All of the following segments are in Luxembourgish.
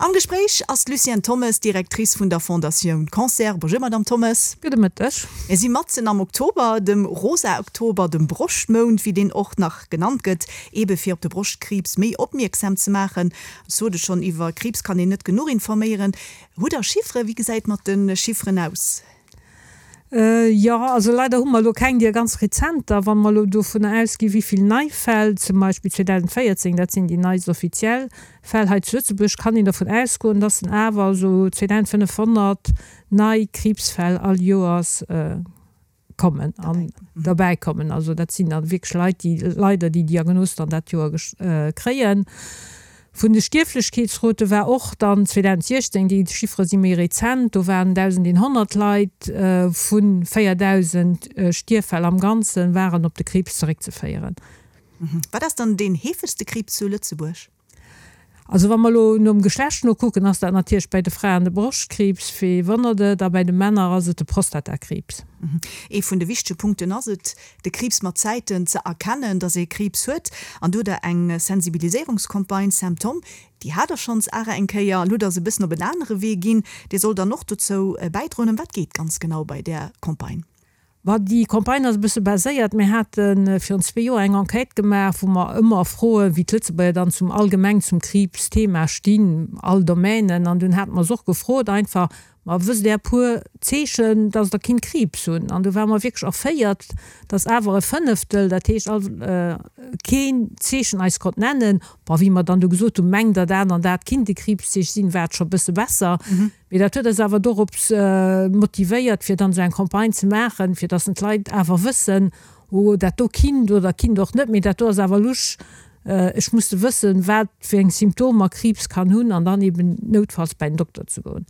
Am Gespréich ass d'Lucienne Thommes, Directrice vun der Fondatioun Cancer. Bonjour Madame Thommes. Gudde Mëtteg. Mir si matzen am Oktober, dem rosa Oktober, dem Broschtmount, wéi deen och nach genannt gëtt, eebe fir op de Broschtkriibs méi opmierksam ze maachen. Ech sot et schonn, iwwer Kriibs kann een net genuch informéieren. Hutt Der Chifferen? Wéi gesäit et mat de Chifferen aus? Jo, also leider hu mer elo keng déi ganz rezenter. Wa mer elo dovunner ausginn, wéi vill nei Fäll zum Beispill 2014, dat sinn déi neist offiziell Fäll hei zu Lëtzebuerg, kann een dervun ausgoen, dass en awer esou 2.500 nei Kriibsfäll all Joers kommen an derbäi kommen. Also dat sinn da wierklech Leit, déi leider déi Diagnos dann dat Joer kréien. Vun de Stierflechkeetsrote war och dann 2016, déi Chiffere si méi rezent, do waren 1.100 Leit vu 4.000 Stierffäll am Ganzen waren op de Kriibs zeréckzeféieren. Wat ass dann deen heefegste Kriibs zu Lëtzebuerg? Also wa mer elo nom Geschlecht nokucken, ass dat natierlech bäi de Fraen de Broschtkriibs, wee wonnert et, a bäi de Männer ass et de Prostatakriibs. Ee vun de wichtege Punkten ass et, de Kriibs mat Zäiten ze erkennen, dass ee Kriibs huet. An do hutt Der eng Sensibiliséierungscampagne, Symptom, déi hat Der schonns awer eng Kéier. Elo hutt Der se e bëssen op en anere Wee ginn. Dir sollt dann och dozou bäidroen. Ëm wat geet ganz genau bei där Campagne? Ma déi Campagne ass e bësse baséiert, mir hate virun zwee Joer eng Enquête gemaach, wou mer ëmmer froen, wéi d'Lëtzebuerger dann zum allgemeng zum Kriibsthema stinn, all Domainen. An dunn hate mer se och gefrot einfach, Ma wësst Där e puer Zeechen, dass Der kinnt Kriibs hunn? An do ware mer wierklech erféiert, dass awer e Fënneftel, dat heescht all, keen Zeechen eis konnt nennen. Bon, wéi mer dann du gesot hunn, Mengt Der dat an dat kinnt e Kriibszeeche sinn, war et scho e bësse besser. Mee dat huet eis awer dorops motivéiert, fir dann esou eng Campagne ze maachen, fir dass d'Leit awer wëssen, Oh, dat do kinnt oder kinnt och net, mee dat do ass awer lusch, ech muss de wëssen, wat fir eng Symptomer Kriibs kann hunn an dann eben noutfalls bäi den Dokter ze goen.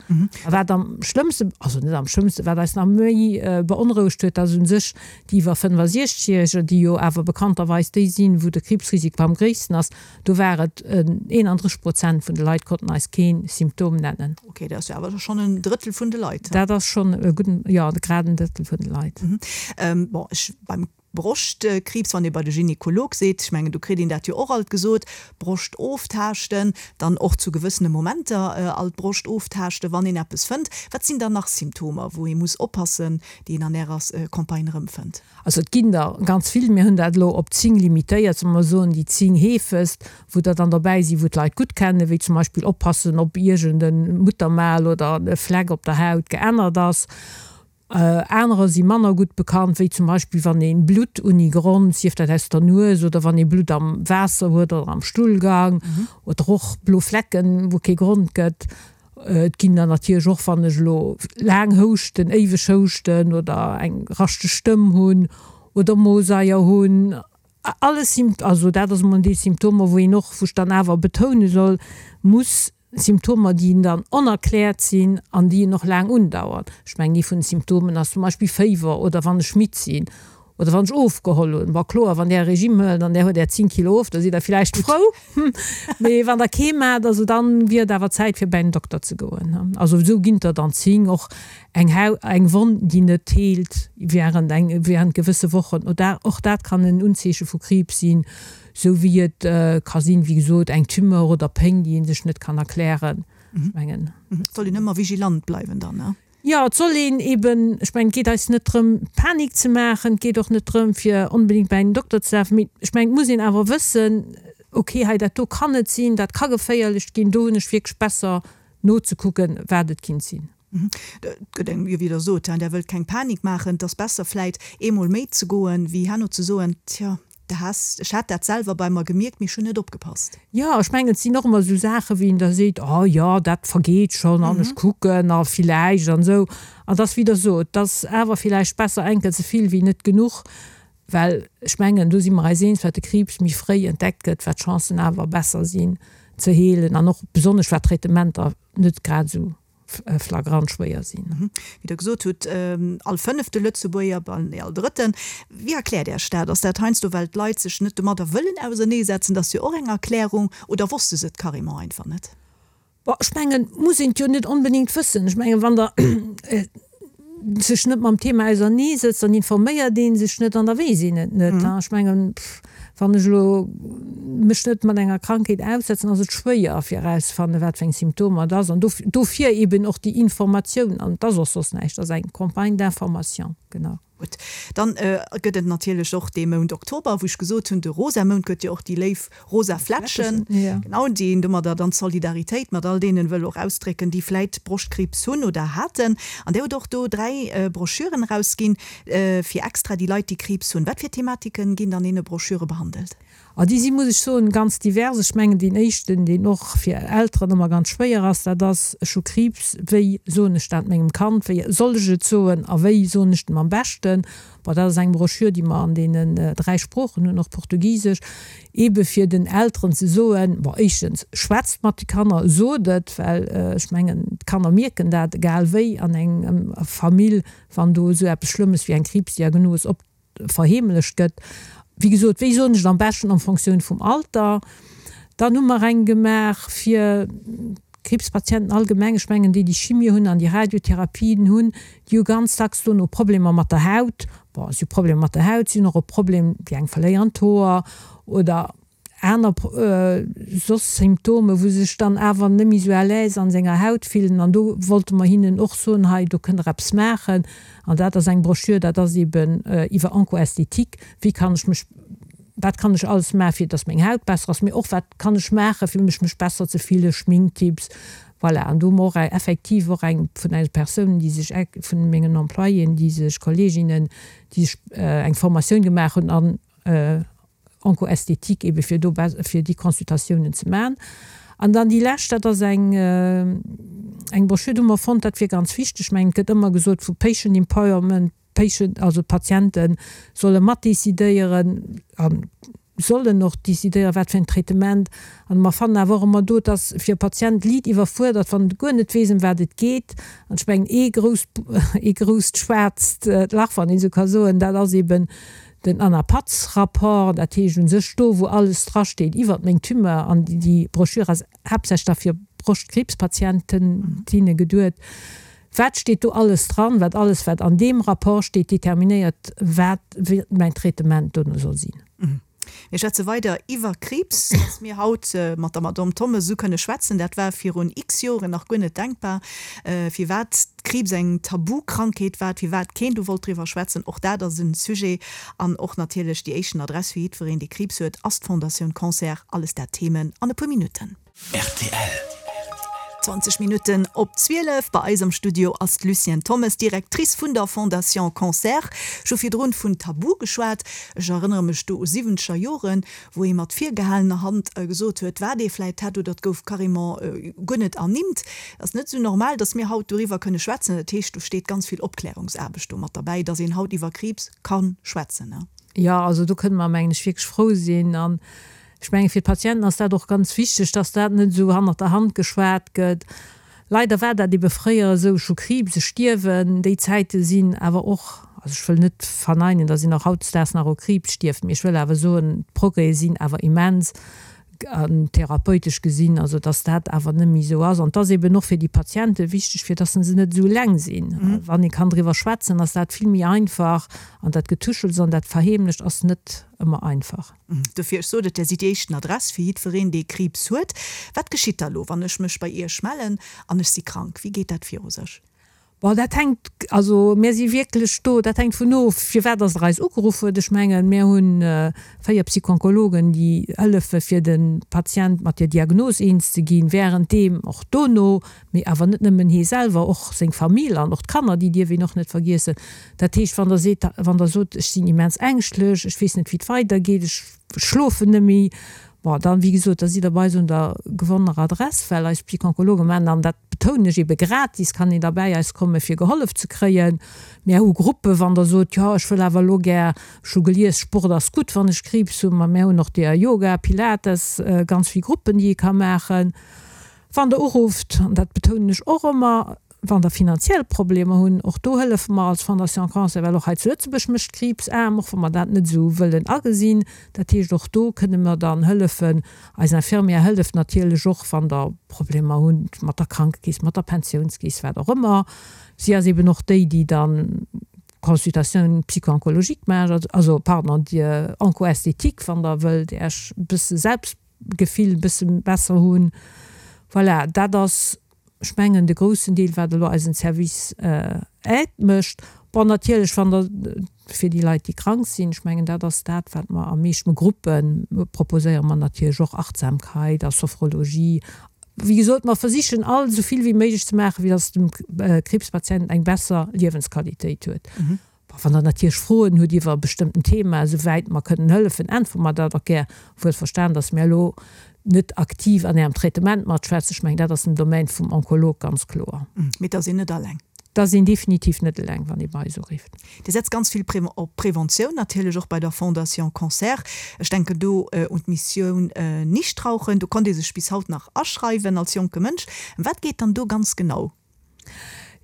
A wat am schlëmmste, also net am schlëmmste, wat eis nach méi beonrouegt huet, dass u sech déi iwwer 65 Järeger, déi jo awer bekannterweis déi sinn, wou de Kriibsrisiko am gréissten ass, do war et 31 Prozent vun de Leit konnten eis kee Symptom nennen. Ok, dat ass jo awer schonn en Drëttel vun de Leit. Dat ass schonn e gudden, jo, grad en Drëttel vun de Leit. Bon, ech beim Broschtkriibs, wann ee bei de Gynekolog seet, ech mengen, do kritt een dat jo och alt gesot, Broscht oftaaschten, dann och zu gewëssene Momenter alt d'Broscht oftaaschten, wann een eppes fënnt. Wat sinn dann nach Symptomer, wou ee muss oppassen, déi een an Ärer Campagne erëmfënnt? Also et ginn der ganz vill. Mir hunn dat elo op 10 limitéiert, solle mer soen, déi 10 heefegst, wou der dann dobäi sinn, wou d'Leit gutt kennen, wéi zum Beispill oppassen, ob iergend e Muttermal oder e Fleck op der Haut geännert ass. Anerer si manner gutt bekannt, wéi zum Beispill wann ee Blutt unni Grond, sief dat aus der Nues oder wann ee Blutt am Waasser huet oder am Stullgang oder och blo Flecken, wou kee Grond gëtt. Et ginn der natierlech och, wann ech elo laang houschten, éiweg houschten oder eng raschteg Stëmm hunn oder Mosaier hunn. Alles Symp-, also dat ass emol déi Symptomer, wou een och, wou ech dann awer betoune soll, muss, Symptomer, déi dann onerkläert sinn an déi en och laang undauern. Ech mengen, ee vun de Symptomen ass zum Beispill Féiwer oder wann ech midd sinn oder wann ech ofgeholl hunn. Bon, kloer, wann Där e Regime huelt an Där huet Är 10 Kilo of, da sidd Der villäicht frou. Mee wann Der kee maacht, also dann wier et awer Zäit fir bäi den Dokter ze goen. Also esou ginn der dann 10. Och eng Hau, eng Wonn, déi net heelt während eng, während gewësse Wochen, oder och dat kann en Unzeeche vu Kriibs sinn, esou wéi et ka sinn, wéi gesot, eng Tumeur oder Péng, déi ee sech net kann erklären. Ech mengen. Et soll een ëmmer vigilant bleiwen dann, ne? Jo, et soll een eben, ech mengen, et geet eis net drëm, Panik ze maachen, et geet och net drëm, fir onbedéngt bäi den Dokter ze lafen, mee ech mengen, et muss een awer wëssen, okay, hei dat do kann et sinn, dat ka geféierlech ginn, do hunn ech wierklech besser nozekucken, wat et kinnt sinn. Et gëtt engem, jo, wéi Der sot, Der wëllt keng Panik maachen, et ass besser vläit eemol méi ze goen, wéi herno ze soen, tjo, De has, ech hat dat selwer bei mer gemierkt, mee ech hunn net opgepasst. Jo, ech mengen, et sinn och ëmmer esou Saachen, wéi een da seet, oh jo, dat vergeet schonn an ech kucken a villäicht an esou. An et ass, wéi Der sot, et ass awer villäicht besser eng Kéier ze vill wéi net genuch, well ech mengen, do si mer eis eens, wat de Kriibs méi fréi entdeckt gëtt, wat d'Chancen awer besser sinn ze heelen an och besonnesch wat d'Traitementer net grad esou flagrant schwéier sinn. Wéi Der gesot hutt, all fënnefte Lëtzebuerger, bal nee, all drëtten. Wéi erkläert Iech dat? Ass dat heiansdo, well d'Leit sech net domadder wëllen auserneesetzen? Dat ass jo och eng Erklärung. Oder wosste se et carrément einfach net? Bon, ech mengen, muss een et jo net onbedéngt wëssen. Ech mengen, wann Der sech net mam Thema auserneesetzt, dann informéiert ee sech net an da weess een et net. Ech mengen, pff. Wann ech elo mech net mat enger Krankheet aussetzen, ass et schwéier fir erauszefannen, wat fir eng Symptomer et ass. An dofir eben och déi Informatioun. An et ass och soss näischt, et ass eng Campagne d'information, genau. Gutt, dann gëtt et natierlech och dee Mount Oktober, wou ech gesot hunn, de rosa Mount gëtt jo och déi léif rosa Flätschen, genau, déi een domadder dann d'Solidaritéit mat all deenen wëll och ausdrécken, déi vläit Broschtkriibs hunn oder haten. An Dir hutt och do 3 Broschüren erausginn, fir extra déi Leit, déi Kriibs hunn. Wat fir Thematiken ginn an deene Broschüre behandelt? A déi si, muss ech soen, ganz divers. Ech mengen, deen éischten, deen och fir Elteren ëmmer ganz schwéier ass, dat ass, Ech hu Kriibs, wéi soen ech dat mengem Kand, wéi soll ech et soen a wéi soen ech dem am beschten? Bon, dat ass eng Broschür, déi mer an deenen 3 Sproochen hunn, och Portugisesch, eebe fir den Elteren ze soen, bon, éischtens, schwätzt mat de Kanner, sot et, well ech mengen, d'Kanner mierken dat, egal wéi an engem Famill, wann do esou eppes Schlëmmes wéi eng Kriibsdiagnos op verheemlecht gëtt. Wéi gesot, wéi soen ech et am beschten en Fonctioun vum Alter. Dann hu mer eng gemaach fir d'Kriibspatienten allgemeng. Ech mengen, déi, déi Chimie hunn an déi Radiotherapien hunn, déi hu ganz dacks dono Problemer mat der Haut. Bon, si hu Problemer mat der Haut, si hunn och e Problem, déi eng verléieren d'Hoer oder aner soss Symptome wou se sech dann awer net méi sou à l'aise an senger Haut fillen an do wollte mer hinnen och soen, hei do kënnt der eppes maachen an dat ass eng Broschür, dat ass eben iwwer Oncoesthétique, wéi kann ech mech, wat kann ech alles maachen fir dass meng Haut besser ass, mee och wat kann ech maachen fir mech mech besser ze fillen, Schminktipps, voilà. An do hu mer och effektiv och eng vun eise Persounen déi sech, vun mengen Employéen déi sech, Kolleginnen déi sech eng Formatioun gemaach hunn an Oncoesthétique ebe fir do fir déi Consultatiounen ze maachen. An dann déi lescht, dat ass eng eng Broschür, do hu mer fonnt, dat wier ganz wichteg. Ech mengen, et gëtt ëmmer gesot vu Patient Empowerment, Patient, also d'Patiente solle matdecidéieren a sollen och decidéieren, wat fir en Traitement. An mer fannen awer och ëmmer do, et ass fir e Patient liit iwwerfuerdert, wann en guer net weess, ëm wat et geet. An ech mengen, ee grousst, ee grousst schwaarzt Lach, wann een esou ka soen, dat ass eben Den Anapatz-Rapport, dat heescht u sech do, wou alles drasteet iwwert meng Tumeur, an déi Broschür ass haaptsächlech da fir Broschtkriibspatienten, tinne geduet, wat steet do alles dran, wat alles, wat an deem Rapport steet, determinéiert, wat mäin Traitement dono soll sinn. Mir schwätze weider iwwer Kriibs. Dass mir haut mat der Madame Thommes esou kënne schwätzen, dat war virun x Joren nach guer net denkbar. Firwat Kriibs eng Tabukrankheet war, firwat keen do wollt driwwer schwätzen, och dat ass e Sujet. An och natierlech déi éischten Adress fir jiddwereen, dee Kriibs huet, ass d'Fondatioun Cancer. Alles dat Themen an e puer Minutten. Rtl. 20 Minutten op 12. Bei eis am Studio ass d'Lucienne Thommes, Directrice vun der Fondation Cancer. Ech hu virdrun vun Tabu geschwat. Ech erënnere mech do u siwwenzeger Joren, wou ee mat virgehalener Hand gesot huet, wat ee vläit hätt, oder et gouf carrément guer net ernimmt. Et ass net esou normal, datt mir haut doriwwer kënne schwätzen. Dat heescht, do steet ganz vill Opklärungsaarbecht do mat derbäi, datt een haut iwwer Kriibs ka schwätzen. Jo, also do kënne mer, mengen ech, wierklech frou sinn. An Ech menge fir d'Patienten ass dat och ganz wichteg, dass dat net esou hannert der Hand geschwat gëtt. Leider war dat ebe fréier esou, ech hu Kriibs, ech stierwen. Déi Zäite sinn awer och, also ech wëll net verneinen, dass een och hautdesdaags nach u Kriibs stierft, mee ech wëll awer soen, d'Progrèse sinn awer immens an therapeutesch gesinn, also dass dat awer net méi esou ass. An et ass eben och fir déi Patiente wichteg, fir dass se net esou eleng sinn. Wann ee kann driwwer schwätzen, ass dat vill méi einfach an dat Getuschels an dat Verheemlecht ass net ëmmer einfach. Dofir, ech sot et, Där sidd déi éischten Adress fir jiddwereen, dee Kriibs huet. Wat geschitt da lo, wann ech mech bei Iech mellen an ech si krank? Wéi geet dat viru sech? Bon, dat hänkt, also mär si wierklech do, dat hänkt vun of, firwat dass Der eis ugeruff huet. Ech mengen, mär hu 4 Psychonkologen, déi hëllefe fir de Patient mat der Diagnos eens ze ginn, währenddeem, och dono, mee awer net nëmmen hie selwer, och seng Famill an och d'Kanner, déi dierf een och net vergiessen. Dat heescht, wann Der seet, wann Der sot, ech sinn immens ängschtlech, ech weess net wéi et weidergeet, ech schlofen net méi, bon, dann, wéi gesot, da sidd Der bei eis un der gewonnener Adress, well eis Psychonkologe maachen, an dat betounen ech ebe gratis, kann een da bäi eis komme fir gehollef ze kréien. Mär hu Gruppen, wann Der sot, jo, ech wëll awer elo gär, ech hu gelies, Sport ass gutt, wann ech Kriibs hunn, ma mär hunn och deer Yoga, Pilates, ganz vill Gruppen, déi ee ka maachen. Wann Der urufft, an dat betounen ech och ëmmer, wann Der finanziell Problemer hunn, och do hëllefe mer als Fondation Cancer, well och hei zu Lëtzebuerg mécht Kriibs aarm, och wa mer dat net esou wëllen agesinn. Dat heescht, och do kënne mer dann hëllefen. Eis Infirmière hëlleft natierlech och, wann Der Problemer hutt mat der Krankekeess, mat der Pensiounskeess, wat och ëmmer. Si ass eben och déi, déi dann. Consultatioun psycho-oncologique maacht, also pardon, déi Onco-esthétique, wann Der wëllt Äech e bësse Selbstgefill e bësse besser hunn. Voilà, dat ass, ech mengen, de groussen Deel, wat elo eisen Service aide mécht. Bon, natierlech, wann Der, fir déi Leit, déi krank sinn, ech mengen, dat ass dat, wat mer am meeschten, Gruppe proposéiere mer natierlech och Achtsamkeit a Sophrologie Wéi gesot, mer versichen all esou vill wéi méiglech ze maachen, fir dass de Kriibspatient eng besser Liewensqualitéit huet. Wann Der natierlech Froen hutt iwwer e bestëmmten Thema, esou wäit mer kënnen hëllefen, äntwere mer dat och gär. Wuel verstan, dass mir elo net aktiv an Ärem Traitement matschwätzen. Ech mengen, dat ass den Domaine vum Onkolog, ganz kloer. Mee et ass een net alleng. Et ass een definitiv net eleng, wann ee bei eis urifft. Dir setzt ganz vill op Preventioun, natierlech och bei der Fondation Cancer. Ech denken do un d'Missioun Nichtrauchen. Do konnt ee sech bis haut nach aschreiwen als jonke Mënsch. Ëm wat geet dann do ganz genau?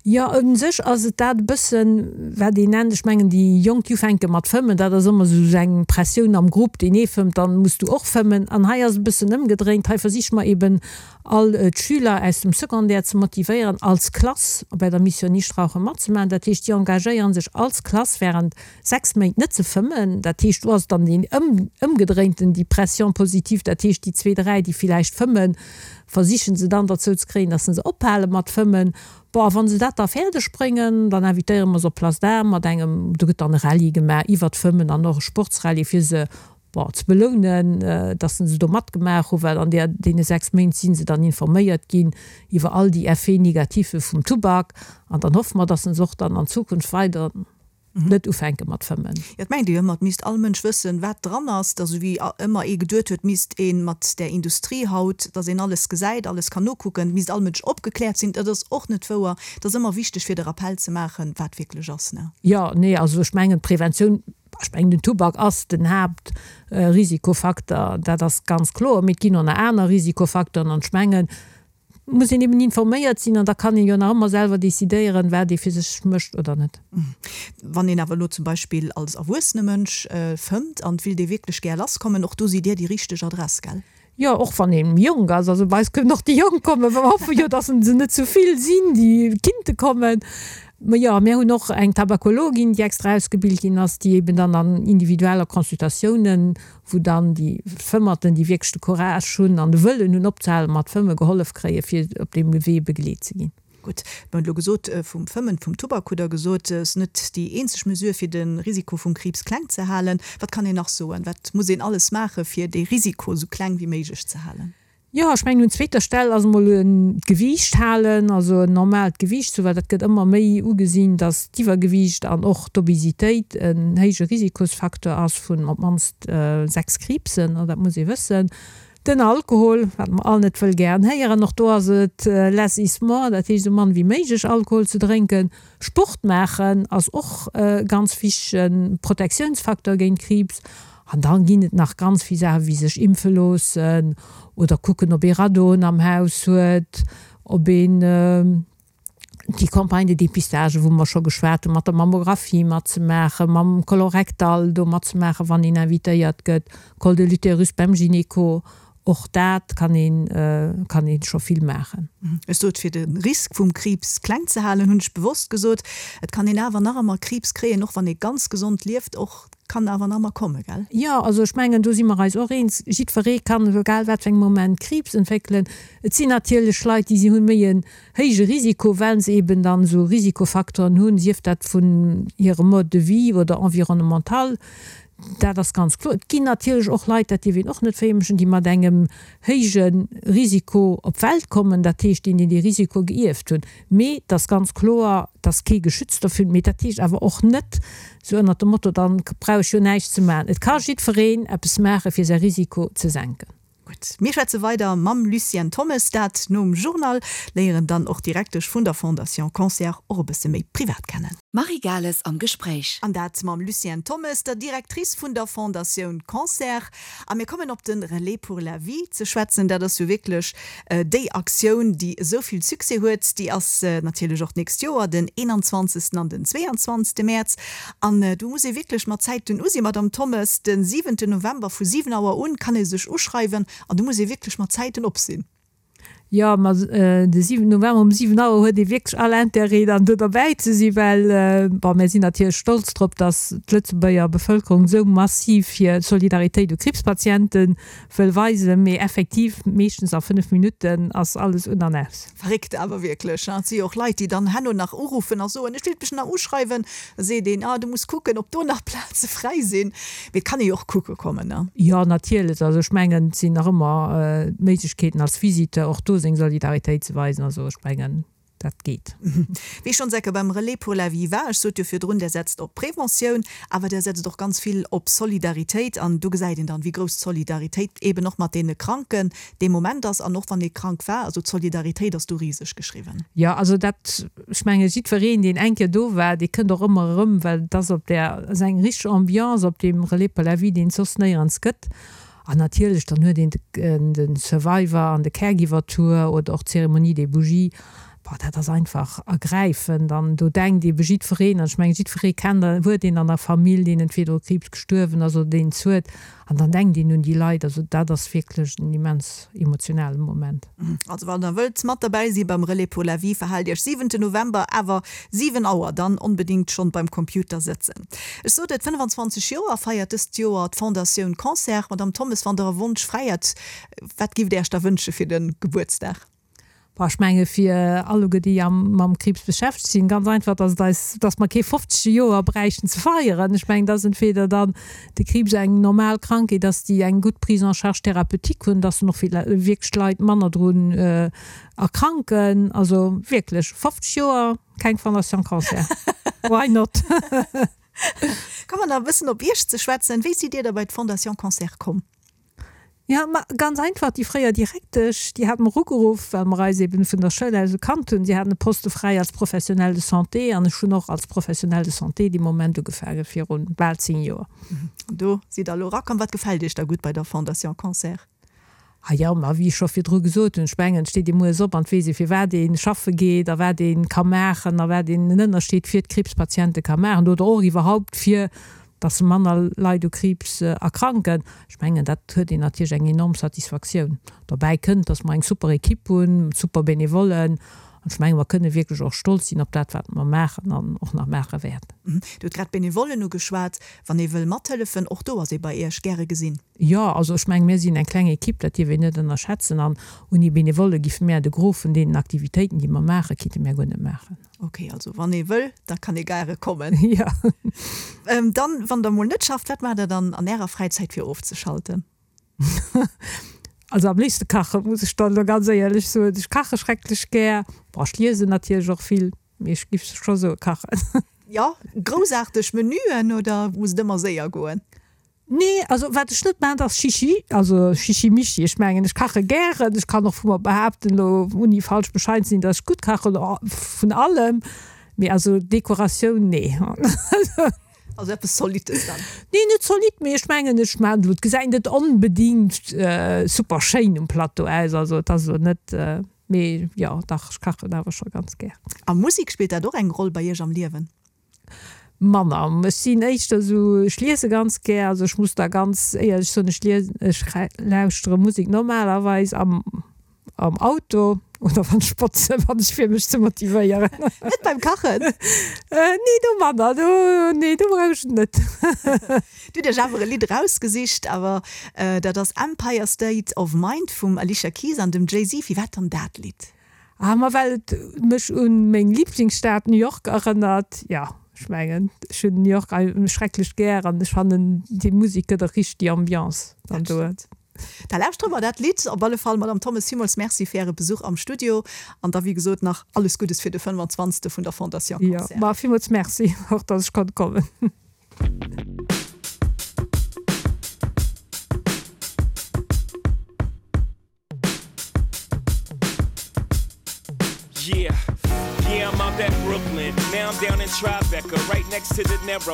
Jo, u sech ass et dat e bëssen, wat een nennt, ech mengen déi Jonk, déi ufänke mat fëmmen, dat ass ëmmer esou eng Pressioun am Grupp, deen ee fëmmt, dann muss du och fëmmen. An hei ass et e bëssen ëmgedréint, hei versiche mer eben all d'Schüler aus dem Secondaire ze motivéieren, als Klass bei der Mission Nichtrauchen matzemaachen. Dat heescht, déi engagéiere sech als Klass während 6 Méint net ze fëmmen. Dat heescht, do ass dann deen ëmgedréinten, déi Pression positive, dat heescht, déi zwee, dräi, déi villäicht fëmmen, versiche se dann derzou ze kréien, dass se ophale mat fëmmen. Bon, a wa se dat da fäerdeg bréngen, dann invitéiere mer se op Place d'Armes mat engem, do gëtt dann e Rallye gemaach iwwert d'Fëmmen an och e Sportsrallye, fir se bon, ze belounen, dass se do matgemaach hunn, well an där, deene 6 Méint si se dann informéiert ginn iwwer all déi Effets négatifs vum Tubak. An dann hoffe mer, dass se och dann an Zukunft weider net ufänke mat fëmmen. Jo, et mengt ee jo ëmmer, et misst all Mënsch wëssen, wat dran ass. Et ass esou wéi ëmmer ee geduet huet, misst ee mat där Industrie haut, dass een alles gesäit, alles kann nokucken, misst all Mënsch opgekläert sinn. Dat ass och net wouer. Et ass ëmmer wichteg, fir de Rappell ze maachen, wat wierklech ass, ne? Jo, nee, also ech mengen, d'Preventioun Ech mengen, den Tubak ass den Haaptrisikofaktor, dat ass ganz kloer, mee et ginn och nach aner Risikofaktoren. An ech mengen, et muss een eben informéiert sinn an da kann een jo nach ëmmer selwer decidéieren, wat ee fir sech mécht oder net. Wann een awer elo zum Beispill als erwuessene Mënsch fëmmt an et willt ee wierklech gär lasskommen, och do sidd Dir déi richteg Adress, gell? Jo, och wann ee méi jonk ass. Also bei eis kënnen och déi Jonk kommen. Mer hoffe jo, dass se net zu vill sinn, déi kinnte kommen. Mä jo, mir hunn och eng Tabakologin, déi extra ausgebilt ginn ass, déi eben dann an individueller Consultatiounen, wou dann déi Fëmmerten, déi wierklech de Courage hunn an de Wëllen hunn opzehale mat fëmmen, gehollef kréien, fir op deem Wee begleet ze ginn. Gutt, mir hunn elo gesot, vum Fëmmen, vum Tubak hutt Der gesot, ass net déi eenzeg Mesure, fir de Risiko vum Kriibs kleng ze halen. Wat kann een nach soen? Wat muss een alles maachen, fir dee Risiko esou kleng wéi méiglech ze halen? Jo, ech mengen, un zweeter Stell ass emol d'Gewiicht halen, also en normaalt Gewiicht ze hu, well dat gëtt ëmmer méi ugesinn, dass d'Iwwergewiicht an och d'Obesitéit en héije Risikosfacteur ass vun op d'mannst 6 Kriibsen, dat muss ee wëssen. Den Alkohol, wat mer all net wëll gären héieren, och do ass et less is more, dat heescht esou mann wéi méiglech Alkohol ze drénken. Sport maachen ass och e ganz wichtege Protektiounsfaktor géint Kriibs. An dann ginn et nach ganz vill Saachen, wéi sech impfe loossen oder kucken, ob ee Radoen am Haus huet, ob een. déi Campagne de dépistage, wou mer scho geschwat hunn, mat der Mammographie matzemaachen, mam Colorectal do matzemaachen, wann een invitéiert gëtt, Col de l'utérus beim Gynéco, och dat kann een, kann ee scho vill maachen. Ech sot, fir de Risk vum Kriibs kleng ze halen, hunn ech bewosst gesot. Et kann een awer nach ëmmer Kriibs kréien, och wann ee ganz gesond lieft, och kann awer nach ëmmer kommen, gell? Jo, also ech mengen, do si mer eis och eens, jiddweree kann, egal wat fir engem Moment, Kriibs entwéckelen. Et sinn natierlech Leit, déi si hunn méi en héije Risiko, well se eben dann esou Risikofacteuren hunn, sief dat vun hirem Mode de vie oder environnemental, dat ass ganz kloer. Et ginn natierlech och Leit, dat dierf een och net verheemlechen, déi mat engem héije Risiko op d'Welt kommen, dat heescht, déi dee Risiko geierft hunn. Mee et ass ganz kloer, et ass kee geschützt dovun. Mee dat heescht awer och net, esou ënnert dem Motto, dann brauch ech jo näischt ze maachen. Et ka jiddwereen eppes maachen, fir säi Risiko ze senken. Gutt, mir schwätze weider mam Lucienne Thommes, dat nom Journal, léieren dann och d'Direktesch vun der Fondation Cancer och e bësse méi privat kennen. D'Marie Gales am Gespréich. An dat mam Lucienne Thommes, der Directrice vun der Fondatioun Cancer. A mir kommen op de Relais pour la vie ze schwätzen. Dat ass jo wierklech déi Aktioun, déi esou vill Succès huet. Déi ass natierlech och d'nächst Joer, den 21. an den 22. Mäerz. An do muss ee wierklech mat Zäiten u sinn, Madamm Thommes. De siwente November vu 7 Auer un kann ee sech uschreiwen an do muss ee wierklech mat Zäiten op sinn. Jo, ma de 7 November um 7 Auer huet ee wierklech all Intérêt dann do derbäi ze sinn, well, bon, mär sinn natierlech stolz drop, datt d'Lëtzebuerger Bevëlkerung esou massiv hir Solidaritéit u Kriibspatiente wëll weisen, mee effektiv, meeschtens a 5 Minutten ass alles un an aus. Verréckt awer wierklech, et si jo och Leit, déi dann herno nach uruffen a soen, ech wéilt mech nach uschreiwen, da seet een, ah du muss kucken, ob do nach Plaze fräi sinn. Mee et kann ee jo och kucke kommen, ne? Jo, natierlech. Also ech mengen, et sinn nach ëmmer d'Méiglechkeeten als Visiteur och do seng Solidaritéit ze weisen. Also ech mengen, dat geet. Wéi schonns ecke beim Relais pour la vie war, ech sot jo virdrun, där setzt op Preventioun, awer där setzt och ganz vill op Solidaritéit. An do gesäit een dann, wéi grouss d'Solidaritéit eeben och mat deene Kranken dee Moment ass an och wann ee krank war. Also d'Solidaritéit ass do riseg geschriwwen. Jo, also dat, ech menge jiddwereen, deen eng Kéier do war, dee kënnt och ëmmer erëm, well et ass op där, ass eng richteg Ambiance op deem Relais pour la vie, deen et soss néierens gëtt. An natierlech, dann huet een de Survivor an de Caregiver Tour oder och d'Cérémonie des Bougies. Boah, dat ass einfach ergräifend an do denkt eebe jiddwereen, an ech mengen, jiddweree kennt an huet een an der Famill, deen entweder u Kriibs gestuerwen ass oder deen es huet. An dann denkt een un déi Leit. Also dat ass wierklech en immens emotionale Moment. Also wann der wëllt mat derbäi si beim Relais pour la vie, verhaalt iech siwente November awer 7 Auer, dann onbedingt schonn beim Computer sëtzen. Ech sot et, 25 Joer feiert dëst Joer d'Fondatioun Cancer. Madamm Thommes, wann der e Wonsch fräi hätt, wat giff der iech da wënsche fir de Gebuertsdag? Bon, ech menge fir alleguer déi am mam Kriibs beschäftegt sinn, ganz einfach, dass et eis, dass mer kee 50. Joer bräichten ze feieren. Ech mengen, dass entweder dann de Kriibs eng normal Krankheet ass, déi eng gutt Prise en charge thérapeutique hunn, dass dann och wierklech d'Leit manner drun erkranken. Also wierklech, 50 Joer keng Fondation Cancer, why not? Komme mer nach e bëssen op Iech ze schwätzen. Wéi sidd Dir da bei d'Fondation Cancer komm? Jo, ma ganz einfach, déi fréier Direktesch, déi hat mer ugeruff, well mer eis eben vun der Schoul aus gekannt hunn. Si haten e Poste fräi als Professionnel de santé an ech hunn och als Professionnel de santé dee Moment ugefaange viru bal 10 Joer. An do sidd Der elo erakomm. Wat gefält Iech da gutt bei der Fondation Cancer? Ah jo, ma wéi ech scho virdru gesot hunn, ech mengen, et steet ee mueres op an et weess ee firwat ee schaffe geet a wat ee ka maachen a wat een en Ënnerscheed fir d'Kriibspatiente ka maachen oder och iwwerhaupt fir dass manner Leit u Kriibs erkranken. Ech mengen, dat huet een natierlech eng enorm Satisfaktioun. Dobäi kënnt, dass mer eng super Equipe hunn, super Benevollen. An ech menge mer kënne wierklech och stolz sinn op dat, wat mer maachen an och nach maache wäerten. Dir hutt grad d'Benevollen ugeschwat. Wann ee wëll mathëllefen, och do ass ee bei Iech gäre gesinn. Jo, also ech menge mir sinn eng kleng Equipe, dat dierf een net ënnerschätzen. An ouni Benevolle giffe mär de Gros vun deenen Aktivitéiten, déi mer maachen, kinnte mär guer net maachen. Ok, also wann ee wëll, da kann ee gaere kommen. Jo. Dann, wann der mol net schafft, wat maacht der dann an ärer Fräizäit fir ofzeschalten? Also am léifste kachen, muss ech dann elo ganz éierlech soen. Ech kache schrecklech gär. Bon, ech liesen natierlech och vill, mee ech giff scho soe kachen. Jo, groussaarteg Menüen oder muss et ëmmer séier goen? Nee, also wat ech net maachen, dat ass Chichi, also Chichi-Michi. Ech mengen, ech kache gären, ech kann och vu mer behaapten, elo ouni falsch bescheiden ze sinn, datt ech gutt kachen, vun allem, mee also Dekoratioun, nee. Also eppes Zolittes dann? Nee, net zolidd, mee ech mengen, ech maachen elo, et gesäit net onbedingt super schéin um Plateau aus, also et ass elo net, mee jo, dach, ech kachen awer scho ganz gär. A Musek, spillt dat och eng Roll bei Iech am Liewen? Manner. Ech sinn éischter esou, ech liese ganz gär, also ech muss da ganz éierlech soen, ech liesen, ech lauschtere Musek normalerweis am am Auto oder wann ech botzen, wann ech fir mech ze motivéieren. Net beim Kachen? Nee, do manner, do, nee, do brauch ech et net. Dir hutt Iech awer e Lidd erausgesicht, awer dat ass Empire State of Mind vum Alicia Keys an dem Jay-Z. Firwat dann dat Lidd? Ah, ma well et mech un meng Lieblingsstad New York erënnert. Jo, ech mengen, ech hunn New York schrecklech gär an ech fannen déi Musek gëtt och richteg déi Ambiance dann do. Da lauschtere mer dat Lidd op alle Fall. Madame Thommes, villmools Merci fir Äre Besuch am Studio an da wéi gesot nach alles Guddes fir de 25. vun der Fondation Cancer. Jo, ma villmools Merci och, dass ech konnt kommen. Yeah, yeah, I'm out at Brooklyn. Now I'm down in Tribeca, right next to the Narrow.